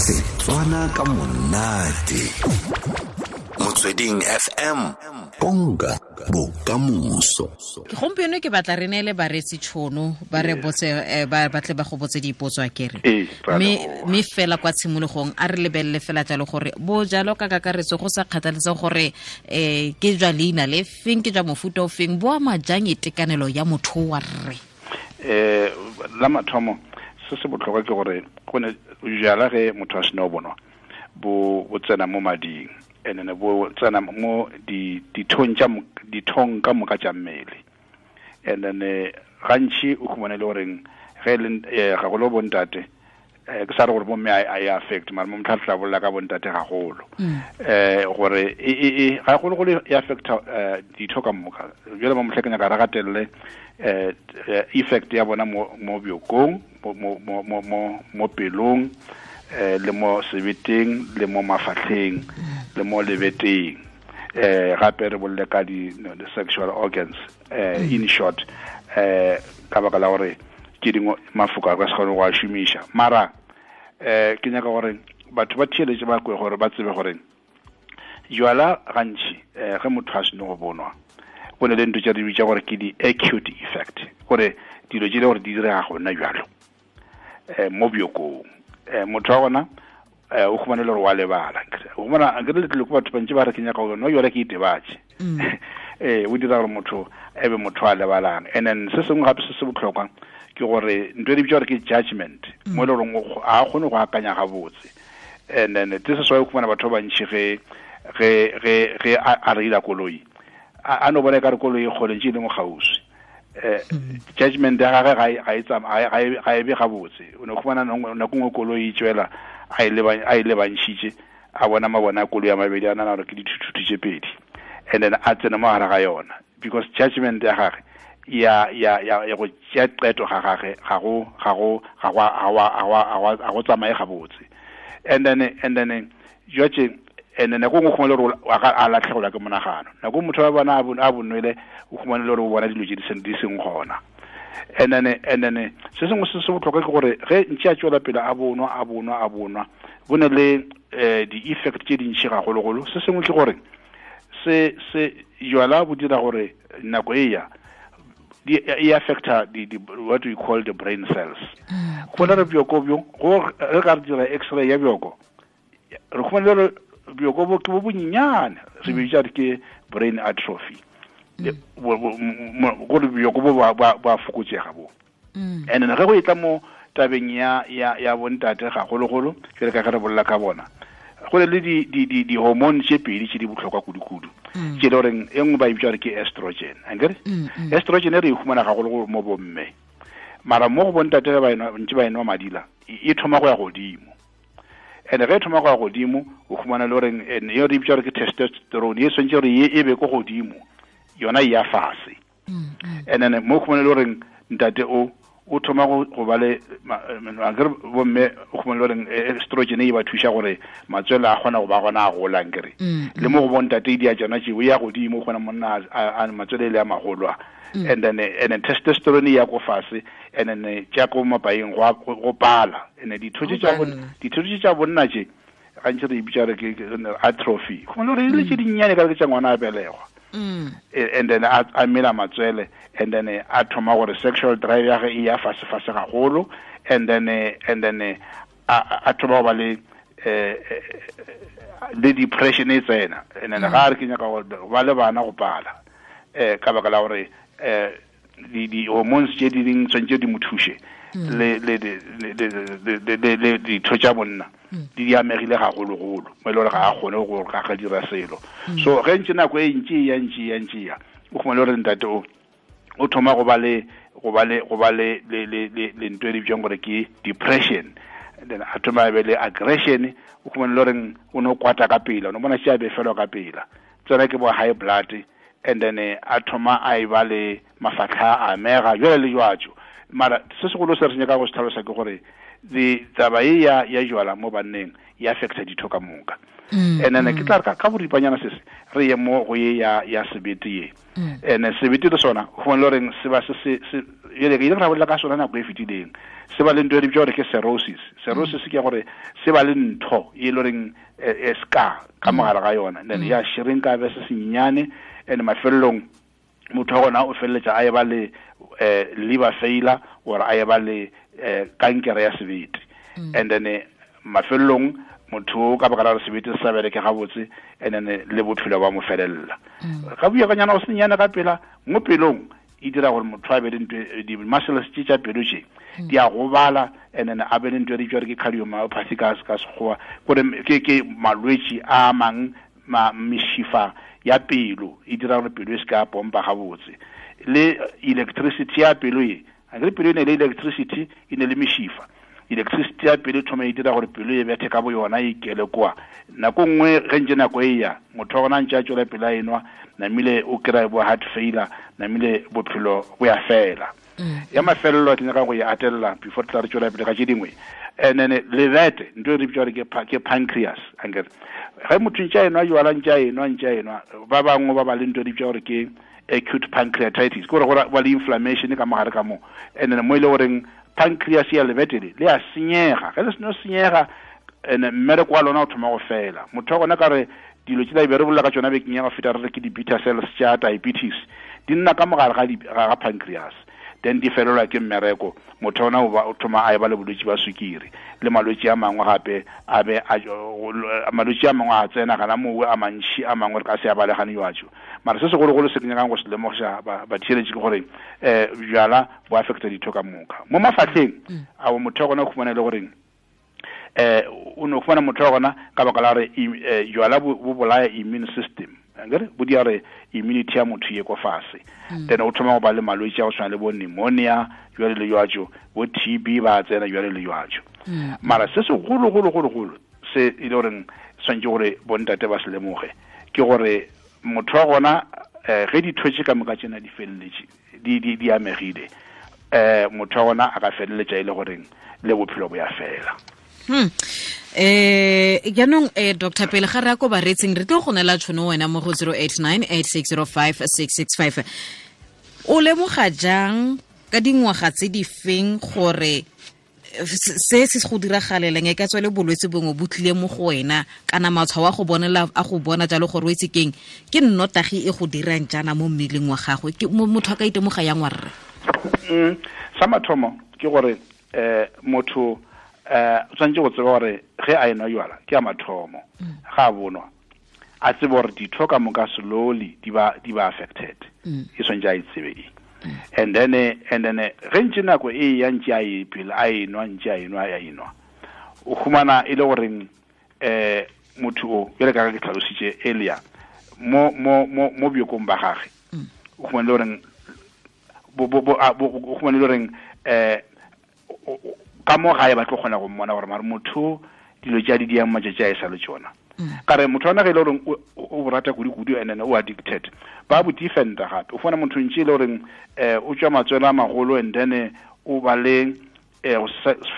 Setswana ka monate. Motsweding FM. Konka bokamoso. Gompieno ke batla re neele bareetsi tšhono ba re botse eh, ba batle ba go botse dipotso a kere. Mme mme fela kwa tshimologong a re lebelele fela jalo gore bo jalo ka kakaretso go sa kgathaletse gore eh ke jwa leina le feng ke jwa mofuta o feng bo ama jang itekanelo ya motho wa rre. Eh la mathomo se se botlhokwa ke gore go ne jala ge motho a sena o bonwa bo bo tsena mo mading and then bo tsena mo di dithong tša dithong ka moka tša mmele and then eh, gantši o khumane le goreng ge le eh, gagolo bontate eh, ke sa re gore bomme a e affect mara mo motlha tla bolela ka bontate gagolo um gore e, e, e, gagologolo e affecta ditho ka moka jale mo motlha ke nyaka re gatelele um effect ya bona mo bjokong mo mo mo mo mo pelong eh le mo sebeteng le mo mafatlheng le mo lebeteng eh gape re bolle ka di sexual organs eh in short eh ka baka la gore ke dingwe mafoko a ka se kgone go a šomiša mara eh ke nyaka gore batho ba theeletše ba kwe gore ba tsebe gore jwala gantši um ge motho a seno go bonwa go ne le ntho tša re bitša gore ke di-acute effect gore dilo tše le gore di direga gona jalo um mo bjokong um motho wa gona um o khumane le gore wa lebala o khumana akere letlile ko batho bantši ba re ke nyaka gore no jale ke itebatše ee o dira gore motho e be motho a lebalang and then se sengwe gape se se botlhokwa ke gore ntho e di bitša gore ke judgment mo e le goreng ga a kgone go akanya gabotse and then this is why o khumana batho ba bantši ge ge ge ge a reila koloi a no bona e ka re koloi e kgole ntše e le mo kgauswi eh judgment ya gagwe ga e ga e be gabotse o ne khumana nako nngwe koloi e tswela a e a e lebantšhitše a bona mabona a koloi a mabedi a nana gore ke dithuthuthi tše pedi and then a tsene mo gare ga yona because judgment ya gage ya ya ya ya go tšea qeto ga gage ga go ga go ga go ga go tsamaye gabotse and then and then jwaje and then nako nngwe khumane gore a latlhegelwa ke monagano nako motho wa bona a bonwele o khumane le gore o bona dilo tse di seng gona and then and then se sengwe se se botlhokwa ke gore ge ntše a tswela pele a bonwa a bonwa a bonwa bo ne le um di-effect tse dintšhi gagologolo se sengwe ke gore se se jwala bo dira gore nako e ya e affecta the, the, what we call the brain cells go na re bjoko bjo go re ka re dira x-ray ya bjoko re khumana gore bjoko bo ke bo bonyenyane re bitša re ke brain atrophy gore bjoko bo ba fokotsega bo mm. and then ge go e tla mo tabeng ya ya ya bontate gagologolo ke re ka ge re bolela ka bona go le le di di di di hormone tše pedi tše di botlhokwa kudu-kudu mm. tše le goreng e nngwe ba e bitsa gore ke estrogen ankere mm, estrogen e re e humana gagologolo mo bomme mara mo go bontate ge ba ntse ba enwa madila e thoma go ya godimo and ge e thoma go ya godimo o humana le goreng e re bitsa gore ke testosterone e swantse gore e be ko godimo yona e ya fase mm, mm. and then mo khumane le goreng ntate o o thoma go ba le akere bomme o khumane le goreng eh, estrogen e ba thuša gore matswele a kgona go ba gona a golang kere mm, le mo go bontate e di a tsona tšeo ya godimo o kgona monna a matswele e le a magolo a and then and then testosterone ya ko fase and then tša ko mapaeng go pala and ditho tše tša bonna tše gantši re e bitša re ke atrophy go le gore e le tše dinnyane ka re ke tša ngwana a belegwa mm. e, and then a mela matswele and then a thoma gore sexual drive ya ge e ya fase fase gagolo and then and then a thoma go ba le eh, eh, le depression e tsena and then mm. ga re ke nyaka go ba le bana go pala um ka baka la gore um di di hormones tše di ding tshwanetse di mo thuše mm. le le le le le ditho tša bonna mm. di di amegile gagologolo mo e le gore ga a kgone go ga ga dira selo mm. so ge ntse nako e ntse ya ntse ya ntse ya o khumane gore ntate o o thoma go ba le go ba le go ba le le le le ntwe e bitswang gore ke depression then a thoma be le aggression o khumane le goreng o no kwata ka pela o no bona tše a befelwa ka pela tsena ke bo high blood and then eh, a thoma a e ba le mafatlha a amega jale le jwatso mara se segolo se re nyaka go se tlhalosa ke gore The taba ye ya ya jwala mo banneng e affecta ditho ka moka. And then ke tla re ka boripanyana se re ye mo go ye ya ya sebete ye. And sebete le sona go le reng se ba se se jale ke ile ra bolela ka sona nako e fetileng. Se ba le ntho e re bitsa gore ke cirrhosis. Cirrhosis ke gore se ba le ntho e le reng e scar ka mogare ga yona. Then ya shrinka be se sennyane and mafelelong motho wa gona o feleletša a eba le liver failure or a eba le kankere ya sebete. And then mafelelong motho ka baka la gore sebete se sa bereke gabotse, and then le bophelo ba mo felelela. Ga buya ka nyana go senyane ka pela mo pelong e dira gore motho a be le ntho di-muscles tše tša pelo tše di a gobala, and then a be le ntho e re bitsa gore ke cardiomyopathy ka Sekgowa, gore ke malwetši a mang mešifa ya pelo e dira gore pelo e se ka pompa gabotse. Le electricity ya pelo e akere pelo e ne le electricity e ne le mešifa. Electricity ya pelo e thoma e dira gore pelo e bethe ka bo yona e ikele kwa. Nako nngwe ge ntse nako e ya motho wa gona ntse a tswela pele a enwa, namile o kry-a bo heart failure, namile bophelo bo ya fela. Ya mafelelo ke nyaka go e atelela before tla re tswela pele ka tše dingwe. And then lebete ntho e re bitsa gore ke pancreas. Ankere ge motho ntse a enwa jwala, ntse a enwa, ntse a enwa, ba bangwe ba ba le ntho e re bitsa gore ke acute pancreatitis, ke gore go ba le inflammation ka mogare ka mo. And then mo e le goreng pancreas ya lebete le a senyega. Ge le seno senyega, and mmereko wa lona o thoma go fela. Motho wa gona ka re dilo tse be re bolela ka tšona bekeng ya go feta, re re ke di-beta cells tša diabetes, di nna ka mogare ga pancreas, then di felelwa ke mmereko. Motho ona o thoma a eba le bolwetši ba sukiri le malwetši a mangwe gape, a be malwetši a mangwe a tsena gana mowe a mantši a mangwe re ka se a balegane jwatšo. Mara se segologolo se ke nyakang go se lemogiša batheeletši ke gore bjala bo affecta ditho ka moka mo mafahleng. A motho wa gona o khumana le goreng o no khumana motho wa gona ka baka la gore jwala bo bolaya immune system, akere bo dia re immunity ya motho ye ko fase. Then o thoma go ba le malwetši a go tshwana le bo pneumonia jwale le jwatšo, bo TB ba tsena jwale le jwatšo. Mara se segolo golo golo golo se e le goreng tshwanetse gore bontate ba se lemoge ke gore motho wa gona ge ditho tše ka moka tsena di feleletše di amegile, motho wa gona a ka feleletša e le goreng le bophelo bo ya fela. Jaanong Dr. pele ga re ya ko baretsing, re tlo go neela tšhono wena mo go 089 8605 665. O lemoga jang ka dingwaga tse di feng gore se se go diragaleleng e ka tswa le bolwetse bongwe bo tlile mo go wena, kana matshwao a go bonela a go bona jalo gore o itse keng ke nnotagi e go dirang jaana mo mmeleng wa gagwe, ke motho a ka itemoga yang wa rre? Sa mathomo ke gore motho o tshwanetse go tseba gore ge a enwa jwala ke a mathomo, ga a bonwa a tsebe gore ditho ka moka slowly di ba affected. E tshwanetse a e tsebe e. And then ge ntse nako e ya ntse a e pele a enwa ntse a enwa a enwa, o humana e le goreng motho o bjale ka ke tlhalositše earlier mo mo mo mo bjokong ba gage, o humana le goreng o humana le goreng ka mo gae ba tlo kgona go mmona gore mare motho dilo tša di diang matšatši a e sa le tšona. Ka re motho ona ge e le goreng o rata kudu-kudu and then o addicted, ba bo defenda gape. O fumana motho ntše e le goreng o tšwa matswele a magolo, and then o ba le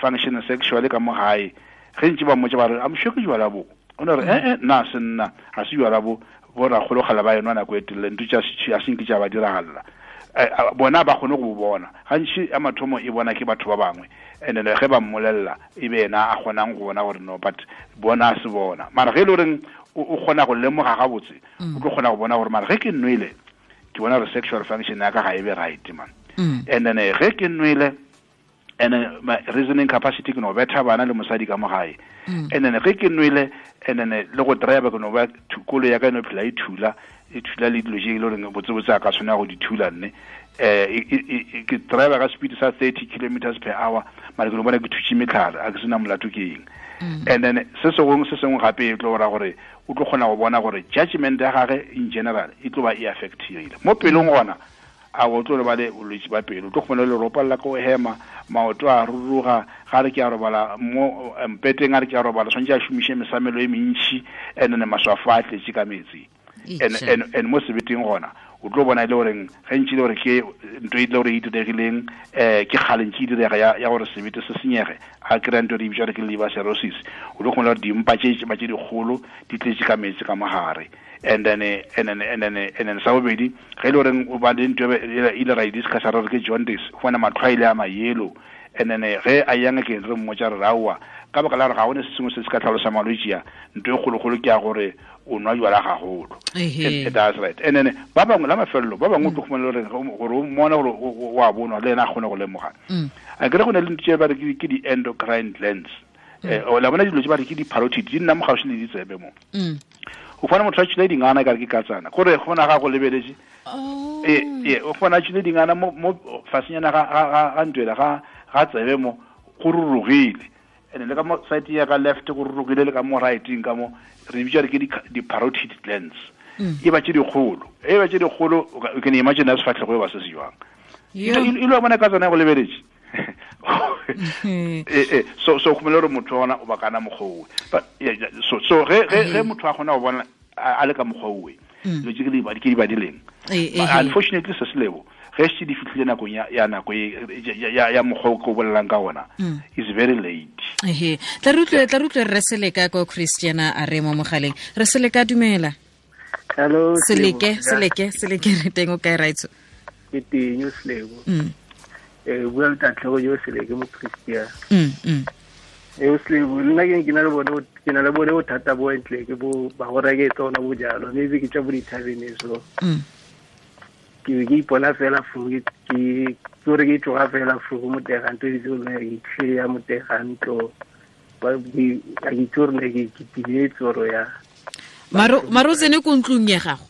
function sexually ka mo gae. Ge ntše ba mmotša ba re I'm sure ke jwala bo, o ne re nna se nna ga se jwala bo, bo rakgologala ba enwa nako e telele, ntho tša a senke tša ba diragalela. Bona ba kgone go bona gantši ya mathomo e bona ke batho ba bangwe, and then ge ba mmolelela e be yena a kgonang go bona gore no, but bona a se bona. Mara ge e le goreng o kgona go lemoga gabotse, o tlo kgona go bona gore mara ge ke nwele ke bona gore sexual function ya ka ga e be right man. And then ge ke nwele and then my reasoning capacity ke no betha bana le mosadi ka mo gae. And then ge ke nwele and then le go drive ke no ba kolo ya ka e no phela e thula le dilo tše e le goreng botsebotse a ka tshwanela go di thula nne. Ke drive ka speed sa 30 kilometers per hour, mara ke no bona ke thutše metlhare, a ke sena molato ke eng. And then se sengwe gape e tlo ra gore o tlo kgona go bona gore judgment ya gage in general e tlo ba e affectile mo pelong gona. A o tlo ba le bolwetši ba pelo, o tlo kgona le ropalla ko hema, maoto a ruruga, ga re ke a robala mo mpeteng, a re ke a robala tshwanetse a šomiše mesamelo e mentši, and then maswafo a tletše ka metsi. And mo sebeteng gona O tlo bona e le goreng ge ntši le gore ke ntho e le gore e diregileng, ke kgale ntši e direga ya gore sebete se senyege, a kry-a ntho e re bitsa gore ke liver cirrhosis. O tlo kgona gore dimpa tše ba tše dikgolo di tletše ka metsi ka mogare. And then, and then, and then, and then sa bobedi, ge e le goreng o ba le ntho e ile ra e discussa re re ke jaundice, o fumana matlho a ile a ma-yellow. And then ge a yang ke re mmotsa re aowa, ka baka la gore ga gone se sengwe se se ka tlhalosa malwetši a, ntho e kgolokgolo ke ya gore o nwa jwala gagolo. That's right. And then ba bangwe la mafelelo, ba bangwe o tlo khumana le gore o mmona gore o a bonwa le ena a kgone go lemoga. A kere go na le ntho tse ba re ke di-endocrine glands. O la bona dilo tse ba re ke di-parotid, di nna mo gaufi le ditsebe mo. O fumana motho a tšhile dingana e kare ke katsana. Gore go bona ga go lebeletse. O fumana a tšhile dingana mo fasenyana ga ntwela, ga tsebe mo, go rurugile. And le ka mo side ya ka left go rurugile, le ka mo right-eng ka mo, re bitsa re ke di-parotid glands. E ba tše dikgolo. E ba tše dikgolo, o can imagine ya sefahlego e ba se se jwang. E lo bona ka tsona go lebeletse. So go gore motho ona o ba kana mokgwa owe. But, yeah, yeah, so, so ge, ge, ge motho a kgona go bona a le ka mokgwa owe, dilo tše ke di badileng. But unfortunately, se se lebo, ge se di fihlile nakong ya nako e, ya mokgwa o ke o bolelang ka ona, is very late. Tla re utlwe, tla re utlwe re Seleka ko Christiana a re mo mogaleng. Re Seleka, dumela. Hello, Seleke, Selebo. Seleke, Seleke, re teng o kae, Raitso? Ke teng, o Selebo. Bua le Tatlhego yo Seleke mo Christiana. O Selebo, nna ke na le bone, ke na le bone bothata bo ntle ke bo ba go reke tsona bojalo, maybe ke tša bo dithabene so. Ke be ke ipona fela fo, ke gore ke tloga fela fo go motega ntlo, ke itse gore ke tlile ya motega ntlo. Ba, ke, a ke itse gore ne ke timetse oro ya. Maro o tsene ko ntlong ya gago?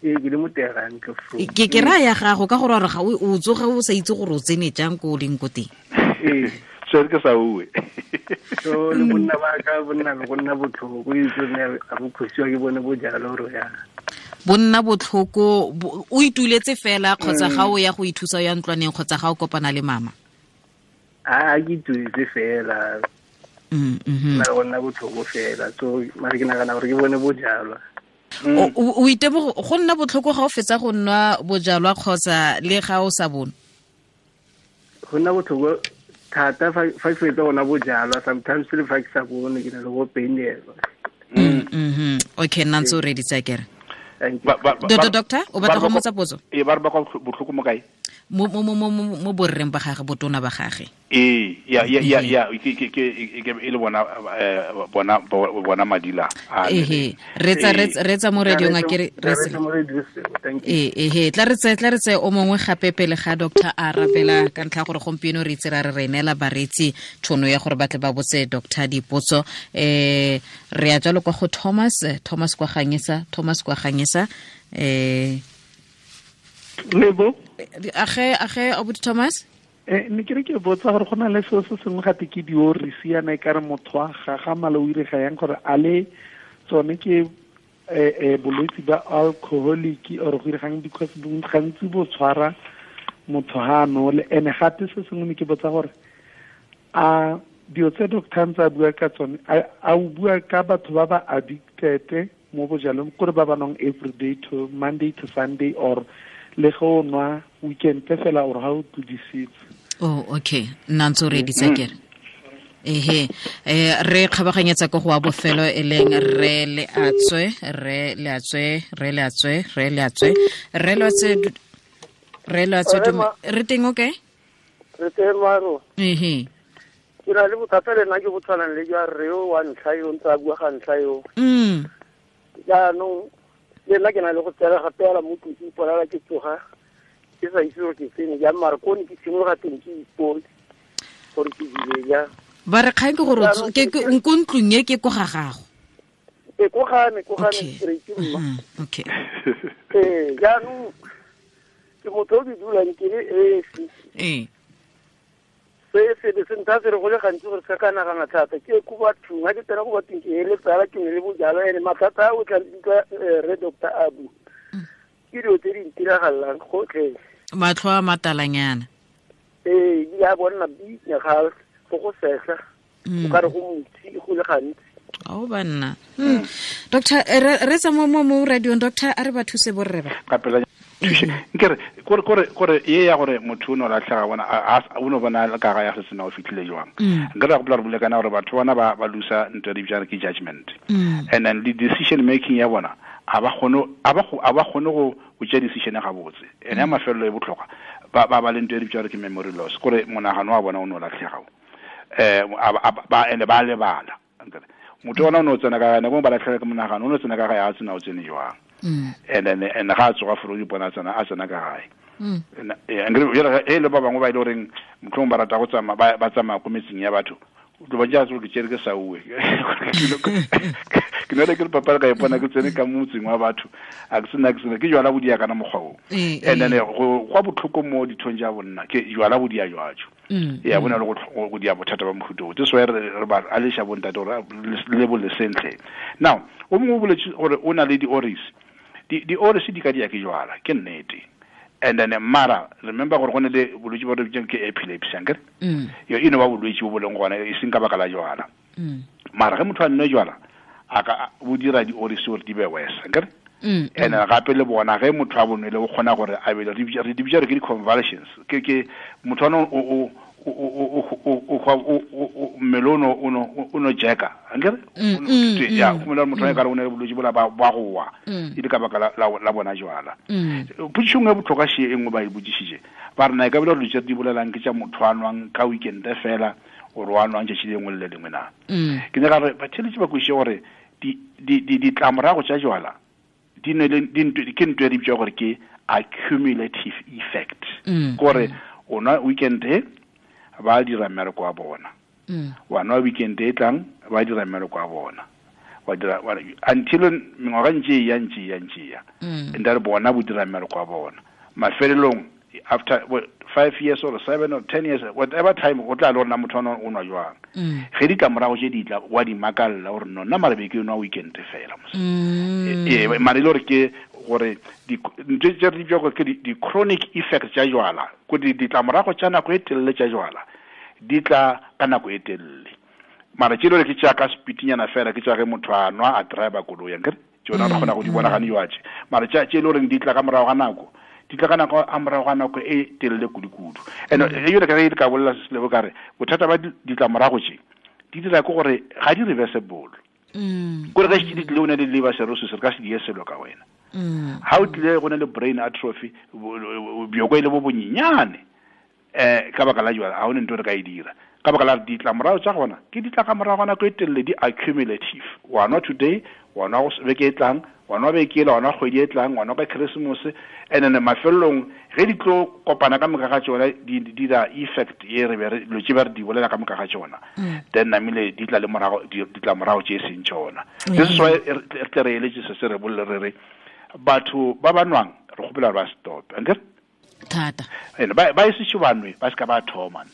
Ee, ke le motega ntlo fo. Ke raya ya gago ka gore ga o tsoga o sa itse gore o tsene jang ko o leng ko teng. Ee. So ke sa bue. So le bonna ba ka, bonna le go nna botlhoko, o itse gore ga bo khosiwa ke bone bojalo oro ya. Bonna botlhoko, o ituletse fela kgotsa ga o ya go ithusa ya ntlwaneng kgotsa ga o kopana le mama? A ke ituletse fela. Na go nna botlhoko fela. So mare ke nagana gore ke bone bojalwa. O itebogo go nna botlhoko ga o fetsa go nwa bojalwa kgotsa le ga o sa bone? Go nna botlhoko thata fa ke fetsa go nwa bojalwa, sometimes le fa ke sa bone ke na le go painelwa. Okay, nna ntse o reditse akere. Thank you. Doctor, o batla go mmotsa potso? Ee, ba re ba kwa botlhoko mo kae? Mo borreng ba gage, botona ba gage. Ee, ya, ya, ya, ya, ke, ke, ke, ke, ke, e le bona, bona, bona madila a le Ehe, retsa, Ee. retsa, retsa mo radiong a kere, Tla retsa. retsa mo radiong, thank you. Ee, ehe, tla re tse, tla re tse o mongwe gape pele ga doctor a arabela ka ntlha ya gore gompieno re itse ra re re neela bareetsi tšhono ya gore ba tle ba botse doctor dipotso. Re ya jalo kwa go Thomas, Thomas kwa Ganyesa, Thomas kwa Ganyesa. Lebo. Age, age, Abuti Thomas? Ne ke re ke botsa gore go na le seo se sengwe gape ke diorisi yana e ka re motho a gagamala o irega yang gore a le tsone ke, bolwetse ba alcoholic or go iregang, because gantsi bo tshwara motho ha a nole. Ene gape se sengwe ne ke botsa gore a dilo tse doctor ntse a bua ka tsone, a o bua ka batho ba ba addicted mo bojalweng, kore ba ba nwang every day to Monday to Sunday, or le ge o nwa weekend fela or ha o tlodisitse? Oh, okay. Nna ntse o reditse akere. Ehe, re kgabaganyetsa ko go wa bofelo e leng re le atswe, re le atswe, re le atswe, re le atswe, re le atswe, re le atswe, Re ma- re teng, okay? Re teng, Maro. Ehe. Ke na le bothata le nna ke bo tshwanang le jwa rre yo wa ntlha yo, ntse a bua ga ntlha yo. Jaanong, le nna ke na le go tsena gape fela mo tlung, ke iponela ke tsoga, ke sa itse gore ke tsene jang, mara ko ne ke simologa teng ke ipone gore ke dile jang. Ba re kgang ke gore o Jaanong ke, ke, ko ntlong e ke ko ga gago. Ee, ko ga me, ko ga me, Okay. straight mma. Okay. Ee, jaanong ke motho o ke dulang ke le esi. Se se be se ntha se re go le gantsi gore se ka nagana thata. Ke ko bathong, ha ke tsena ko bathong ke eletsa ke ne le bojalwa, ene mathata a o tla utlwa, re Doctor Abu. Ke dilo tse di ntiragalelang gotlhe. Matlho a matalanyana. Ee, ebile a bonna binya ga go go sehla. O ka re go motsi go le gantsi. Ao banna. Doctor, re tsa mo radiong, doctor, a re ba thuse borre ba. Ka pela. Thuše nkere kore kore kore ye ya gore motho o no latlhega bona o no bona ka ga ya se sena o fitlhile jwang. Nkere go re bule kana gore batho bona ba ba lusa ntwe di bjang ke judgment. And then the decision making ya bona a ba kgone a ba a ba kgone go go tšea decision ga botse. Ene ya mafelelo e botlhokwa ba ba ba le ntwe di bjang ke memory loss kore monagano wa bona o no latlhega. Ba ene ba lebala. Motho ona o no tsena ka gane, ba latlhela ke monagano, o no tsena ka gae a tsena o tsene jwang. And then and ga a tsoga foro di bona tsena a tsena ka gae. E le ba bangwe ba ile goreng motlhong ba rata go tsamaya ba tsamaya ko metseng ya batho, o tlo ba ja tsolo ke tšere ke sa uwe ke nole ke le papadi ka ipona ke tsene ka motseng wa batho, a ke sena ke sena ke jwala bodia kana mokgwa o. And then go kwa botlhoko mo dithong tša bonna ke jwala bodia jwajo. Ya bona le go dia bothata ba mohuto o. This why re ba aleša bontate gore le bole sentle. Now o mongwe o boletse gore o na le di-oris, di-oris di ka dia ke jwala, ke nnete. And then mara remember gore go ne le bolwetse bo re bitsang ke epilepsy, ankere? Yo e no ba bolwetse bo bo leng gona e seng ka baka la jwala. Mara ge motho a nne jwala a ka bo dira di-oris gore di be worse, ankere? And gape le bona ge motho a bonwele o kgona gore a be re di bitsa re ke di-convulsions, ke motho ano o mmele o no jeka, ankere? Ya go motho a ka re o ne le bolwetse bola ba go wa e le ka baka la bona jwala. Potšišo nngwe e botlhokwa še e nngwe ba e botšišitše, ba re na e ka bile gore dilo tse di bolelang ke tša motho a nwang ka weekend fela ore wa nwang tšatši le lengwe le le lengwe na? Ke nyaka gore batheletši ba kwešiše gore ditlamorago tša jwala di ne le ke ntho e re bitswa gore ke accumulative effect. Gore o nwa weekend e ba dira mmereko wa bona, wa nwa weekend e tlang ba dira mmereko wa bona, wa dira until mengwaga ntse e ya ntse ya ntse ya, and re bona bo dira mmereko wa bona mafelelong after 5 years or 7 or 10 years, whatever time o tla le gore na motho o nwa jwang. Ge ditlamorago tše di tla wa di makalla gore no nna mara be ke nwa weekend fela mos. Ee, mara e le gore ke gore ntho tse re di gore ke di-chronic effects tša jwala, ko ditlamorago tša nako e telele tša jwala di tla ka nako e telele. Mara tše le gore ke tša ka spitinyana fela, ke tša ge motho a nwa a driver koloi, ankere tsona re kgona go di bona gane jwatše. Mara tša tše le goreng di tla ka morago ga nako, di tla ka nako a morago ga nako e telele kudu-kudu. And e yone ka ge ka bolela se selebo ka re bothata ba ditlamorago tše di dira ke gore ga di reversible. Kore ge di tlile o ne le liver cirrhosis, re ka se die selo ka wena. Ha o tlile go ne le brain atrophy, bjoko e le bo bonyenyane, ka baka la jwala, ha o ne ntho re ka e dira. Ka baka la ditlamorago tša gona ke di tla ka morago ga nako e telele, di accumulative. Wa nwa today, wa nwa beke e tlang, wa nwa beke ela, wa nwa kgwedi e tlang, wa nwa ka Christmas, and then mafelelong ge di tlo kopana ka moka ga tšona di dira effect ye re be re dilo tše ba re di bolela ka moka ga tšona, then namile di tla le morago ditlamorago tše e seng tšona. This is why re tle re eletse se se re bolele re re batho ba ba nwang re kgopela gore ba stop, ankere? Thata. Ene ba e sešo ba nwe, ba se ka ba thoma.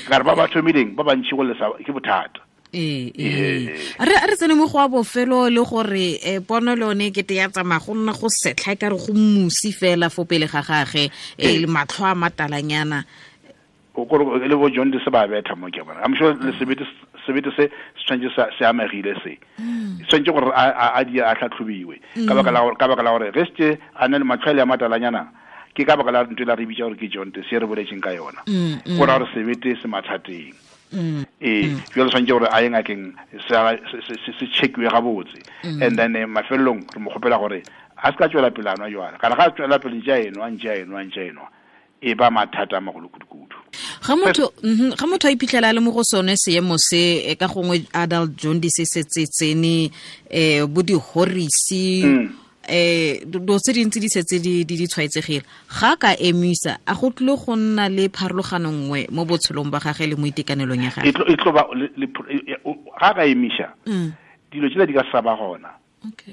Ka re ba ba thomileng ba bantši go lesa ke bothata. Ee, re tsene mo go wa bofelo le gore pono le yone kete ya tsamaya go nna go setlha e ka re go musi fela fo pele ga gage, le matlho a matalanyana. O kore le bo John se ba betha mo ke bona. I'm sure le sebete se se tshwanetse se amegile se. Tshwanetse gore a di a tlhatlhobiwe. Ka baka la ka baka la gore ge se a ne le matlho a matalanyana, ke ka baka la ntwe la re bitsa gore ke John se re boletseng ka yona. Go ra gore sebete se mathateng. Ee, jwale tshwanetse gore a ye ngakeng se checkiwe gabotse. And then mafelelong re mo kgopela gore a se ka tswela pele a nwa jwala. Kana ga a tswela pele ntse a enwa, ntse a enwa, ntse a enwa, e ba mathata a magolo kudu-kudu. Ga motho a iphitlhela a le mo go sone seemo se, ka gongwe adult jaundice se tsene, bo dihorisi, dilo tse dintsi di setse di tshwaetsegile, ga ka emisa a go tlile go nna le pharologano nngwe mo botshelong ba gagwe le mo itekanelong ya gagwe? E tlo ba ga ka emisa dilo tsela di ka sa ba gona.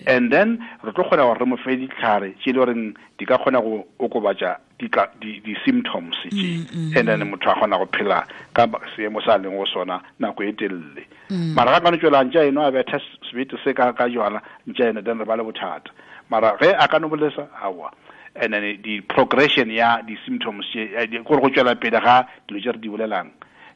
And then re tlo kgona gore re mo fe ditlhare tše le goreng di ka kgona go okobatša di-symptoms tše, and then motho a kgona go phela ka seemo sa leng go sona nako e telele. Mara ga ka no tswela ntša eno a betha sebete se ka jwala ntša eno, then re ba le bothata. Mara ge a ka no bolesa aowa, and then di progression ya di-symptoms tše, gore go tswela pele ga dilo tše re di bolelang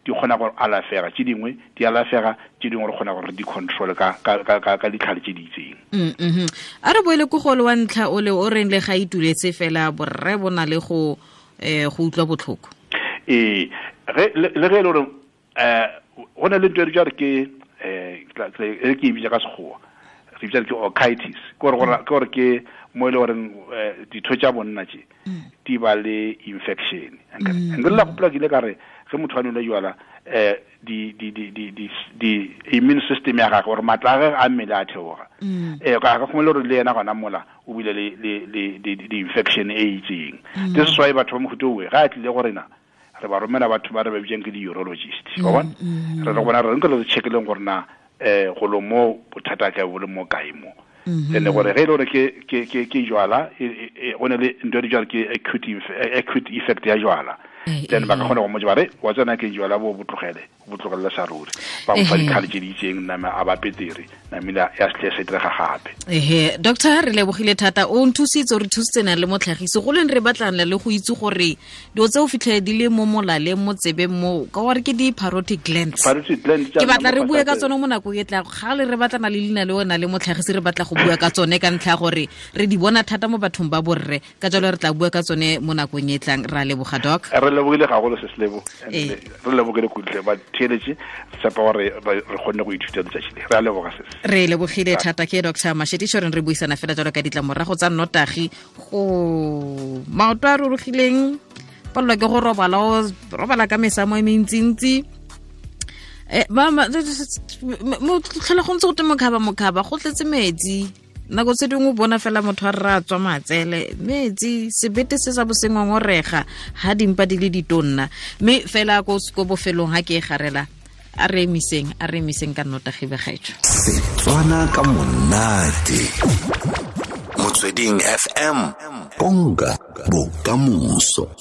di kgona go alafega tše dingwe di alafega tše dingwe re kgona gore re di control ka ka ka ka ditlhare tše di itseng mm -hmm. a re boele ko gole wa ntlha o le o reng le ga ituletse fela borre bo na le go eh go utlwa botlhoko ee ge le ge e le gore eh go na le ntho e re ke eh e ke e bitsa ka sekgowa re bitsa ke orchitis ke gore ke gore ke mo e le goreng eh, ditho tša bonna tše mm. di ba le infection mm. nke la gopola ke ile ka re ge motho a nwele jwala um di di di di di di immune system ya gagwe gore matla a gage a mmele a theoga um ka ga gongwe le gore le yena gona mola o bile le le le di infection e itseng this is why batho ba mohuta owe ga a tlile go rena re ba romela batho ba re ba bitsang ke di-urologist wa bona mm, mm. re re bona re nke re checkeleng gore na um golo mo bothata ka bo le mo kae mo mm-hmm. and gore ge e le gore ke ke ke ke jwala e, e, e, go ne le ntho e dijwala ke acute acute effect ya jwala eh, then ba ka eh. kgona go mo ba re wa tsena ke jwala bo bo tlogele bo tlogelela sa ruri ba mo fa ditlhare tse di itseng nama a ba petere namile ya setle se direga gape ehe doctor re lebogile thata o nthusitse o re thusitse na le motlhagisi go leng re batlang le go itse gore dilo tse o fitlhele di le mo molaleng mo tsebeng mo ka gore ke di-parotid glands ke batla re bue ka tsone mo nakong e tla ga le re batlana le leina le ona le motlhagisi re batla go bua ka tsone ka ntlha ya gore re di bona thata mo bathong ba borre ka jalo re tla bua ka tsone mo nakong e tlang ra leboga doc re lebogile gagolo se selebo ee. re lebogile kutle ba theeletše tshepa gore re kgonne go ithuta letsatsi le re a leboga se re lebogile thata ke dr mashetišo reng re buisana fela jalo ka ditlamorago tsa nnotagi go maoto a rurugileng palelwa ke go robala o robala ka mesamo e mentsintsi eh, mo tlhola go ntse go te mokhaba mokhaba go tletse metsi nako tse dingwe o bona fela motho a rra tswa matsele metsi sebete se sa bosengongorega ga dimpa di le ditonna mme fela ko bofelong ga ke e garela a re emiseng a re emiseng ka nnotagi begaetso setswana ka monate motsweding fm konka bokamoso.